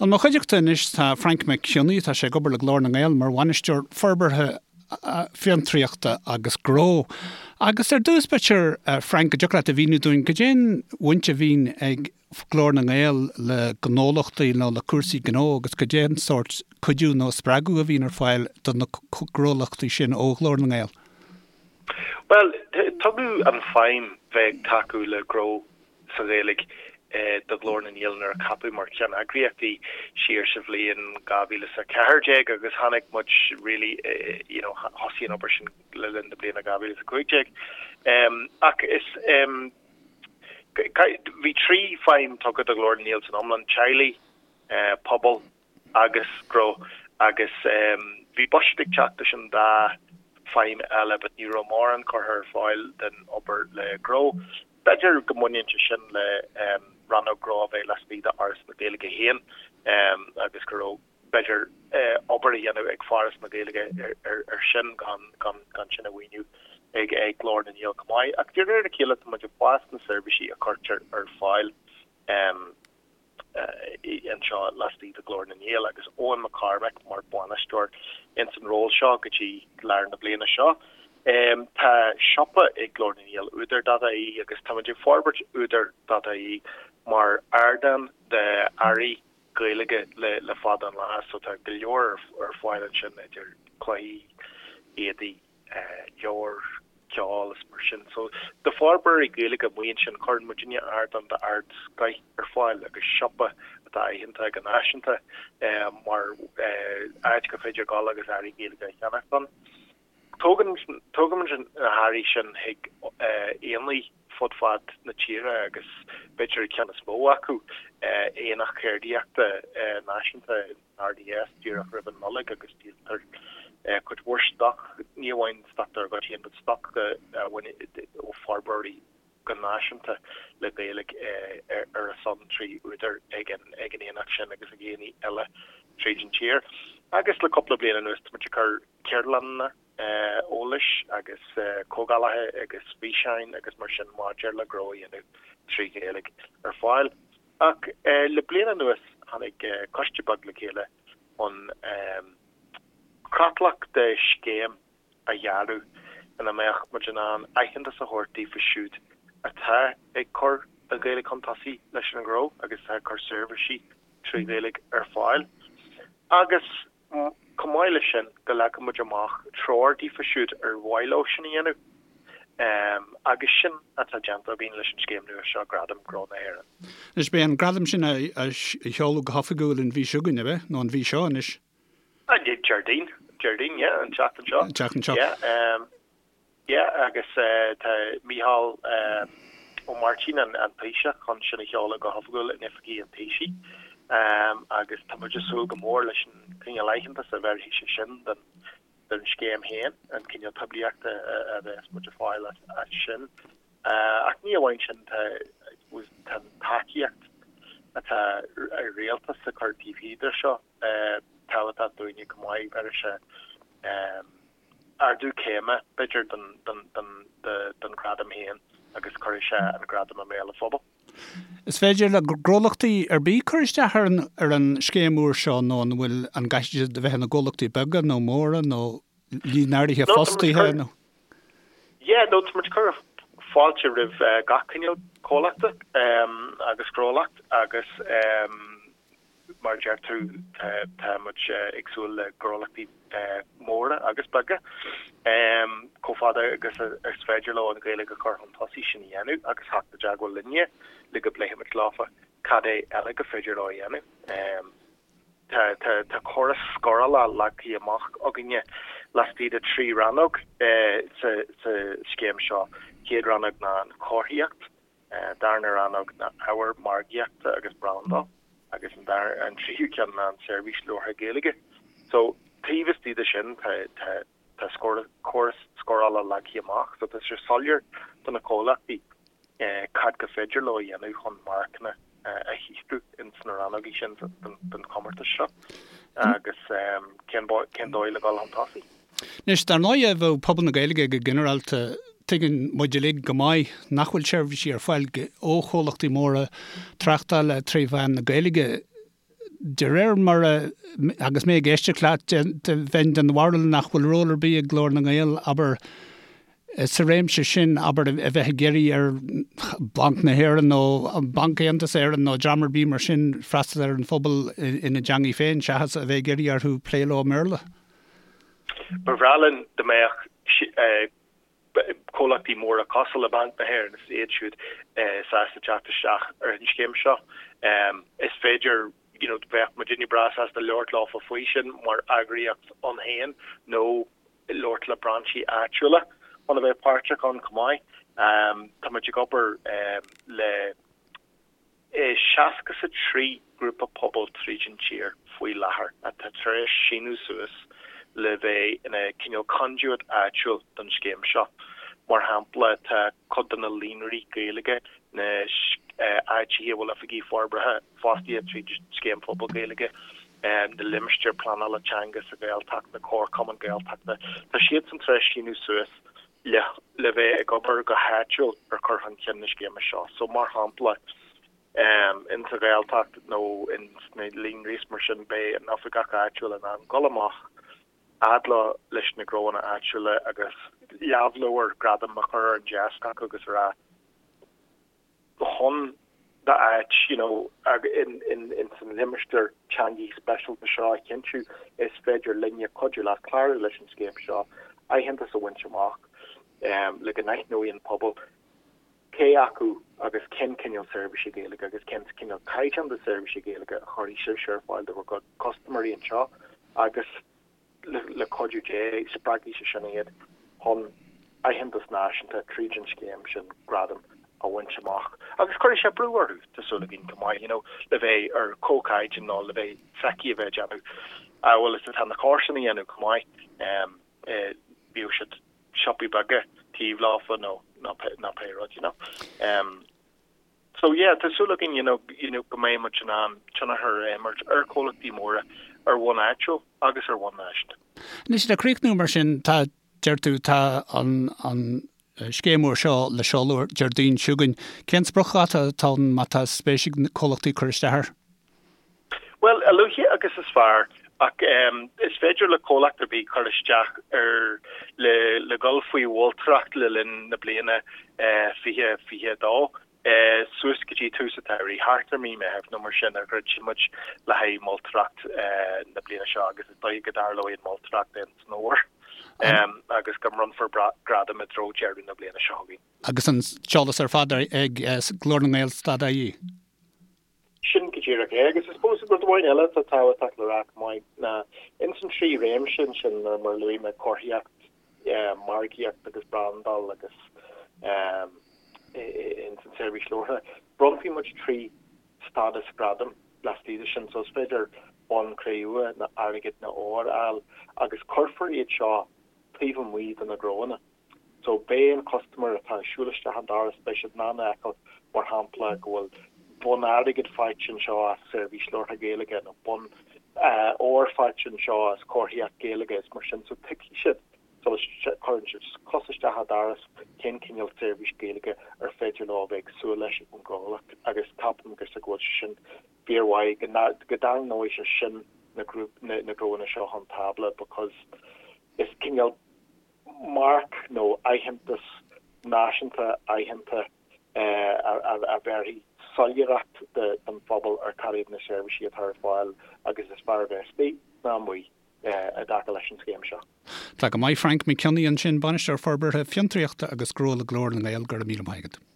I mo chuideachta anois tá Frainc Mac Cionnaith, tá sé ag obair le Glór na nGael mar Bhainisteoir Forbartha Fiontraíochta agus Gnó. Agus ar dtús b'fhéidir, Frainc, go dtiocfadh leat a mhíniú dúinn goidé an bhaint a bhíonn ag Glór na nGael le gnólachtaí nó le cúrsaí gnó agus goidé an sórt cuidiú nó spreagadh a bhíonn ar fáil do na gnólachtaí sin ó Ghlór na nGael? Bhuel, tugadh an feidhm bheith ag tacú le gnó sa Ghaeilge do Ghlór na nGael nuair a ceapadh mar cheanneagraíocht í siar sa bhliain 2014 agus tháinig muid really you know thosaigh an obair sin le linn na bliana 2015. Ach is bhí 3 feidhm tugtha do Ghlór na nGael san iomlán, teaghlaigh, pobal agus gnó agus bhí buiséad ag teacht leis an dá feidhm eile but ní raibh mórán curtha ar fáil den obair le gnó. B'fhéidir go mbaineann sé sin le rannóg gnó a bheith laistigh d'Fhoras na Gaeilge féin agus go raibh b'fhéidir obair a dhéanamh ag Foras na Gaeilge ar sin gan gan sin a mhaoiniú ag Glór na nGael chomh maith. Ach de réir a chéile tá muid ag fás na seirbhísí a chuirtear ar fáil. anseo laistigh de Ghlór na nGael agus Eoin McCormack mar bhainisteoir ins an ról seo go dtí lár na bliana seo. Tá siopa ag Glór na nGael, Údar.ie, agus táimid ag forbairt Údar.ie mar ardán d'earraí Gaeilge le fada an lá so tá go leor ar fáil ansin idir cluichí, éadaí, leabhair, ceol is mar sin. So, do forbróirí Gaeilge amuigh ansin, cuireann muidinne ardán d'ardscoith ar fáil agus siopa atá aitheanta go náisiúnta mar áit gur féidir dul agus earraí Gaeilge a cheannacht ann. Tógann, tógaimid na hearraí sin chuig aonaigh fud fad na tíre agus b'fhéidir an ceann is mó acu, Aonach Ceardaíochta Náisiúnta RDS díreach roimh an Nollaig agus díoltar cuid mhór stoc, ní amháin stoc dár gcuid féin, but stoc ó forbróirí go náisiúnta le Gaeilge ar a son trí Údar ag an aonach sin agus ag aonaigh eile tríd an tír. Agus le cúpla bliain anuas tá muid ag cur ceardlanna eolais agus comhdhálacha agus físeáin agus mar sin maidir le gnó a dhéanamh trí Ghaeilge ar fáil. Ach le bliain anuas tháinig coiste beag le chéile chun creatlach de scéim a dhearadh ina mbeadh muid in ann aitheantas a thabhairt daofa siúd atá ag cur an Ghaeilge chun tosaigh leis an ngnó agus atá ag cur seirbhísí trí Ghaeilge ar fáil. Agus Chomh maith leis sin, go leagfadh muid amach treoir daofa siúd ar mhaith leo sin a dhéanamh. Agus sin atá déanta againn leis an scéim nua seo, Gradam Gnó na hÉireann. Anois, beidh an gradam sin á sheoladh go hoifigiúil an mhí seo chugainn, ab ea? Nó an mhí seo anois? Déardaoin. Déardaoin, yeah, an tseachtain seo. An tseachtain seo. Yeah. Yeah, agus tá Mícheál Ó Máirtín, an Taoiseach, chun sin a sheoladh go hoifigiúil in oifigí an Taoisigh agus tá muid ag súil go mór leis an cineál aitheantas a bhéarfaidh sé sin don scéim féin, an cineál poiblíochta a bheas muid ag fáil as sin. Ach ní amháin sin, tá an tacaíocht atá an rialtas ag cur taobh thiar de seo tábhachtach dúinne chomh maith, bhéarfaidh sé ardú céime, b'fhéidir, don ghradam féin agus cuirfidh sé an gradam i mbéal an phobail. Is féidir le gnólachtaí ar bith cur isteach ar an ar an scéim úr seo nó an bhfuil, an gcaithfidh siad a bheith ina gcomhlachtaí beaga nó móra nó líon áirithe fostaithe nó? Yeah, no, tá muid ag cur fáilte roimh gach cineál comhlachta agus gnólacht agus Mar a deir tú, tá muid ag súil le gnólachtaí móra agus beaga, chomh fada agus is féidir leo an Ghaeilge a chur chun tosaigh, sin a dhéanamh agus theacht i dteagmháil linne le go bpléifimid leofa cad é eile gur féidir leo a dhéanamh. Tá córas scórála leagtha amach againne laistigh de thrí rannóg sa scéim seo. Chéad rannóg ná an chomharthaíocht, darna rannóg ná ábhar margaíochta agus brandáil agus an dara an tríú ceann ná an seirbhís labhartha Gaeilge. So taobh istigh de sin tá tá tá scór córas scórála leagtha amach so tá sé soiléir do na comhlachtaí eh, cad gur féidir leo a dhéanamh chun marcanna eh, a shaothrú ins na rannógaí sin den, den chomórtas seo agus eh, cén, cén dóigh le dul chun tosaigh. Anois, dar ndóighe, bheadh pobal na Gaeilge go ginearálta, tuigeann muid uilig go maith nach bhfuil seirbhísí ar fáil ó chomhlachtaí móra tráchtála tré mheán na Gaeilge. De réir mar a, agus mé ag éisteacht leat, bheinn den bharúil nach bhfuil ról ar bith ag Glór na nGael, abair, sa réimse sin, abair, a bheith ag iarraidh ar Bhanc na hÉireann nó Banc Aontas Éireann nó dream ar bith mar sin freastal ar an phobal ina dteangaidh féin seachas a bheith ag iarraidh orthu plé leo i mBéarla. Ba bhreá linn dá mbeadh comhlachtaí móra cosúil le Banc na hÉireann is iad siúd sásta teacht isteach ar an scéim seo. Is féidir, you know, bheadh muidinne breá sásta labhairt leofa faoi sin mar eagraíocht ann féin nó labhairt le brainsí áitiúla chun a bheith páirteach ann chomh maith. Tá muid ag obair le 63 grúpa pobail tríd an tír faoi láthair atá tar éis síniú suas le bheith ina cineál conduit áitiúil don scéim seo. Mar shampla, tá cuid de na líonraí Gaeilge, na áiteacha a bhfuil oifigigh forbartha fostaithe tríd an Scéim Phobal Gaeilge, na limistéir pleanála teanga sa Ghaeltacht, na comharchumainn Gaeltachta, tá siadsan tar éis síniú suas le le bheith ag obair go háitiúil ar chur chun cinn na scéime seo. So, mar shampla, in sa Ghaeltacht nó in sna líonraí is mar sin, beidh an oifigeach áitiúil in ann dul amach fhad leo leis na gnóanna áitiúla agus lámhleabhar gradaim a chur ar an deasc acu agus a rá, chun d'áit you know in in in san limistéar teangaí speisialta seo a chinntiú, is féidir linne cuidiú leat clárú leis an scéim seo, aitheantas a bhaint amach le go n-aithneoidh an pobal cé acu agus cén cineál seirbhísí Gaeilge agus cén cineál caighdeán de seirbhísí Gaeilge a chuirfidh sibhse ar fáil do bhur gcuid custaiméirí anseo agus le cuidiú Dé, spreagfaidh sé sin iad chun aitheantas náisiúnta tríd an scéim sin, gradam, a bhaint amach. Agus cuirfidh sé brú orthu, tá súil againn, chomh maith, you know, le bheith ar comhchaighdeán nó le bheith feicthe a bheith ag déanamh amhail is atá na comharsana a dhéanamh chomh maith, bíodh siad siopaí beaga taobh leofa nó nó pé rud, you know. So yeah, tá súil againn you know, you know, go mbeidh muid in ann tionchar a imirt ar chomhlachtaí móra ar bhonn áitiúil agus ar bhonn náisiúnta. Anois le críochnú mar sin, tá, deir tú, tá an, an scéim úr seo le seoladh Déardaoin seo chugainn. Cén spriocdháta atá ann má tá spéis ag comhlachtaí cur isteach air? Bhuel, a luaithe agus is fearr, ach is féidir le comhlacht ar bith cur isteach ar le le dhul faoi mholtóireacht le linn na bliana 2022, suas go dtí tús an tsamhraidh, thart ar mí Meithimh nó mar sin a dhruidfidh muid le haghaidh moltóireacht na bliana seo agus is dóigh go dtarlóidh an mholtóireacht in san fhómhar agus go mbronnfar gradam i dtreo deireadh na bliana seo chugainn. Agus an t-eolas ar fad ag Glór na nGael stad ie. Sin go díreach é. Agus I suppose rud amháin eile atá tábhachtach le rá chomh maith ná ins an trí réimse ansin mar mar luaigh mé, comharthaíocht, margaíocht agus brandáil agus ins an seirbhís labhartha, bronnfaidh muid trí stádas gradaim laistigh de sin. So is féidir bonn cré-umha nó airgead nó ór a fháil agus cuirfear iad seo taobh amuigh de na gnóanna. So beidh an custaiméir atá ag siúl isteach an doras, beidh siad in ann a fheiceáil, mar shampla, go bhfuil bonn airgid faighte anseo as seirbhís labhartha Gaeilge nó bonn óir faighte anseo as comharthaíocht Gaeilge is mar sin. So tuigfidh siad sula gcuireann siad cos isteach an doras cén cineál seirbhís Gaeilge ar féidir leo a bheith ag súil leis ón gcomhlacht agus ceapaim go bhfuil sé sin fíormhaith, go dtarraingeoidh sé sin na gnóanna seo chun tábla because is cineál marc nó aitheantas náisiúnta aitheanta a bhéarfaidh soiléireacht don phobal ar cad iad na seirbhísí atá ar fáil agus is fearr a bheith istigh ná amuigh i dtaca leis an scéim seo. Tá go maith Frank Mac Cionnaith ansin, Bainisteoir Forbartha Fiontraíochta agus Gnó le Glór na nGael, go raibh míle maith agat.